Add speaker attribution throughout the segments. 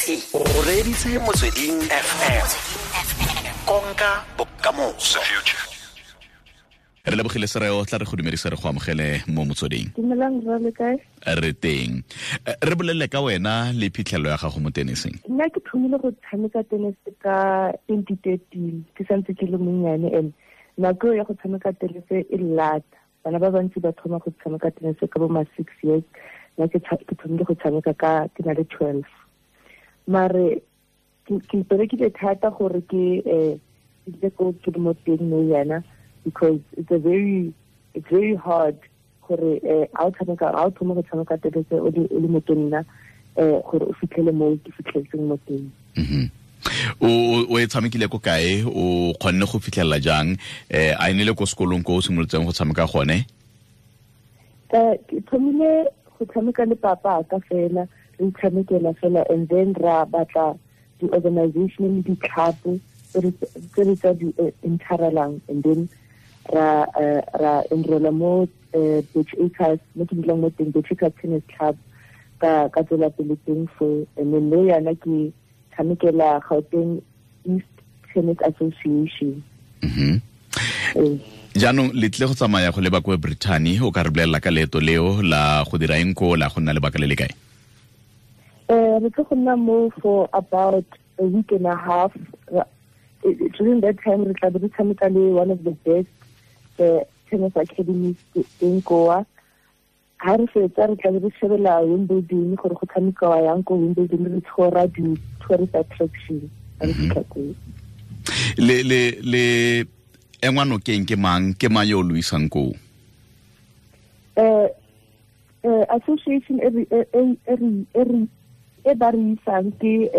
Speaker 1: O reditse Motsweding FM, konka bokamoso.
Speaker 2: Re lebogile Sereo, tla re go dumedisa, re go amogele mo Motsweding.
Speaker 3: Dumelang rra, le kae?
Speaker 2: Re teng. Re bolelele ka wena le phitlhelelo ya gago mo teniseng.
Speaker 3: Nna ke thomile go tshameka tennis ka 2013, ke santse ke le monnyane, and nako ya go tshameka tennis e lata. Bana ba bantsi ba thoma go tshameka tennis ka bo ma 6 years, nna ke thomile go tshameka ka ke na le 12. Mare ke iperekile thata gore ke ke ko ke le mo teng mo yana, because it's very hard gore a o tshameka, a o thoma go tshameka tennis o le motonna, gore o fitlhele mo ke fitlheletseng mo teng.
Speaker 2: O e tshamekile ko kae? O kgonne go fitlhelela jang? A e ne le ko sekolong ko o simolotseng go tshameka gone?
Speaker 3: Ke thomile go tshameka le papa ka fela, re itshamekela fela, and then ra batla di-organization le di-club tse re tsa di enterelang, and then ra enrolla mo Birch Acres, mo ke dulang mo teng, Birch Acres Tennis Club. Ka tswela pele teng fo, and then le yana ke tshamekela Gauteng East Tennis Association.
Speaker 2: Jaanong le tle go tsamaya go leba kwa Brittany. O ka re bolelela ka leeto leo la go dira eng ko, la go nna lebaka le le kae?
Speaker 3: Re tlo go nna mo for about a week and a half. During that time re tla be re tshameka le one of the best tennis academies teng koa. Ha re fetsa, re tla be re shebela Wimbledon, gore go tshamekiwa yang ko Wimbledon, re tshora di-tourist attraction ha re fitlha koo.
Speaker 2: Le engwa nokeng ke mang? Ke mang yo o lo isang koo?
Speaker 3: Association e re e e e re e re e ba re isang ke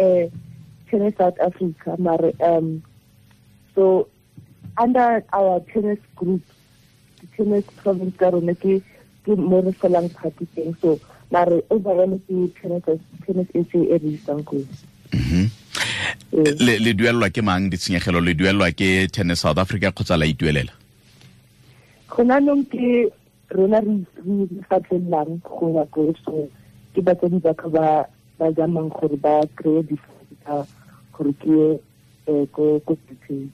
Speaker 3: Tennis South Africa, mare so under our tennis group, the tennis province ka rona, ke mo re felang party teng. So mare overall ke Tennis SA e re isang koo.
Speaker 2: Le duelelwa ke mang ditshenyegelo? Le duelelwa ke Tennis South Africa kgotsa la ituelela?
Speaker 3: Gona nong ke rona re fatlelelang go ya ko, so ke batsadi ba ka ba zamang gore ba kry-e di tsa gore ke ye ko Britain.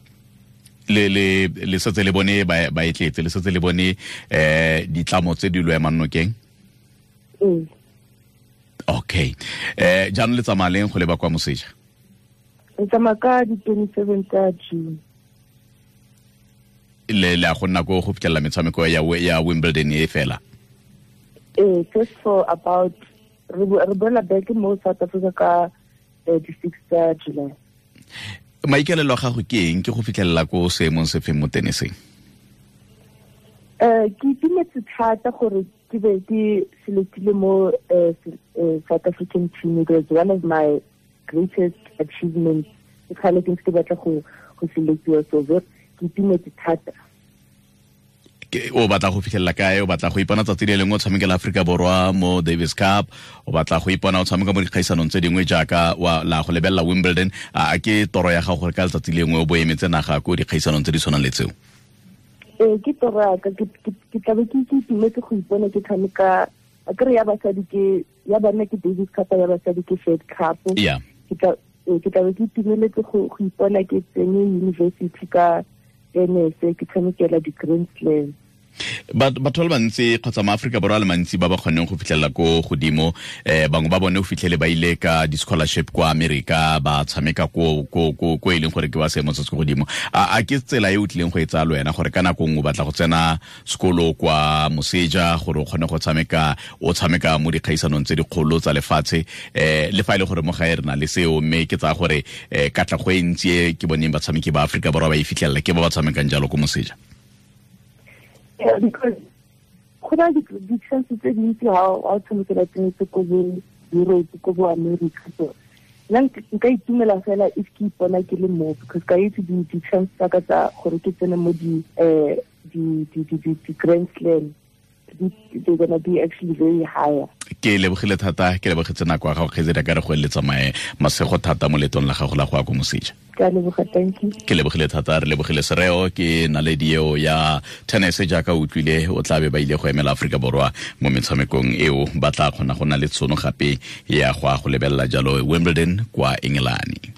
Speaker 2: Le setse le bone ba e tletse, le setse le bone ditlamo tse di lo emang nokeng?
Speaker 3: Ee.
Speaker 2: Okay, jaanong le tsamaya leng go leba kwa moseja?
Speaker 3: Re tsamaya ka di-27 tsa June.
Speaker 2: Le a go nna ko go fitlhelela metshameko ya Wimbledon e fela?
Speaker 3: Ee, just for about re boela back mo South Africa ka di-6 tsa July.
Speaker 2: Maikaelelo a gago ke eng? Ke go fitlhelela ko seemong se feng mo teniseng?
Speaker 3: Ke itumetse thata gore ke be ke selectile mo South African team. It was one of my greatest achievements. Ke kgale ke ntse ke batla go selectiwa, so ke itumetse thata.
Speaker 2: O batla go fitlhelela kae? O batla go ipona tsatsi le lengwe o tshamekela Aforika Borwa mo Davis Cup? O batla go ipona o tshameka mo dikgaisanong tse dingwe jaaka wa la go lebelela Wimbledon? A ke toro ya gago gore ka letsatsi lengwe o bo emetse naga ko dikgaisanong tse di tshwanang le tseo?
Speaker 3: Ee, ke toro ya ka. Ke tlabe ke itumetse go ipona ke tshameka. A kere ya basadi ke ya banna ke Davis Cup, ya basadi ke Fed Cup. Ke tlabe ke itumeletse go ipona ke tsene university ka tennis, ke tshamekela di-Grand Slam.
Speaker 2: Batho ba le bantsi kgotsa maaforika Borwa a le mantsi ba ba kgonneng go fitlhelela ko godimo, bangwe ba bone o fitlhele ba ile ka di-scholarship kwa Amerika, ba tshameka ko e leng gore ke ba seemo se se ko godimo. A ke tsela e o tlileng go e tsaya le wena, gore ka nako nngwe o batla go tsena sekolo kwa moseja gore o kgone go tshameka, o tshameka mo dikgaisanong tse dikgolo tsa lefatshe? Le fa e le gore mo gae re na le seo, mme ke tsaya gore katlego e ntsi e ke boneng batshameki ba Aforika Borwa ba e fitlhelela ke ba ba tshamekang jalo ko moseja.
Speaker 3: Yeah, because go na di-chance tse dintsi ha o tshamekela tennis ko bo Europe, ko bo America. So nna nka itumela fela if ke ipona ke le mo, because ka itse di-chance tsa ka tsa gore ke tsene mo di di di di di di Grand Slam, they're gonna be actually very higher.
Speaker 2: Ke lebogile thata, ke lebogetse nako ya gago, kgaitsedi, ka re go eletsa mae masego thata mo letong la gago la go ya ko moseja.
Speaker 3: Ke a leboga, thank you.
Speaker 2: Ke lebogile thata, re lebogile Sereo, ke naledi eo ya tennis. Jaaka o utlwile, o tla be ba ile go emela Aforika Borwa mo metshamekong eo. Ba tla kgona go na le tshono gape ya go a go lebelela jalo Wimbledon kwa Engelane.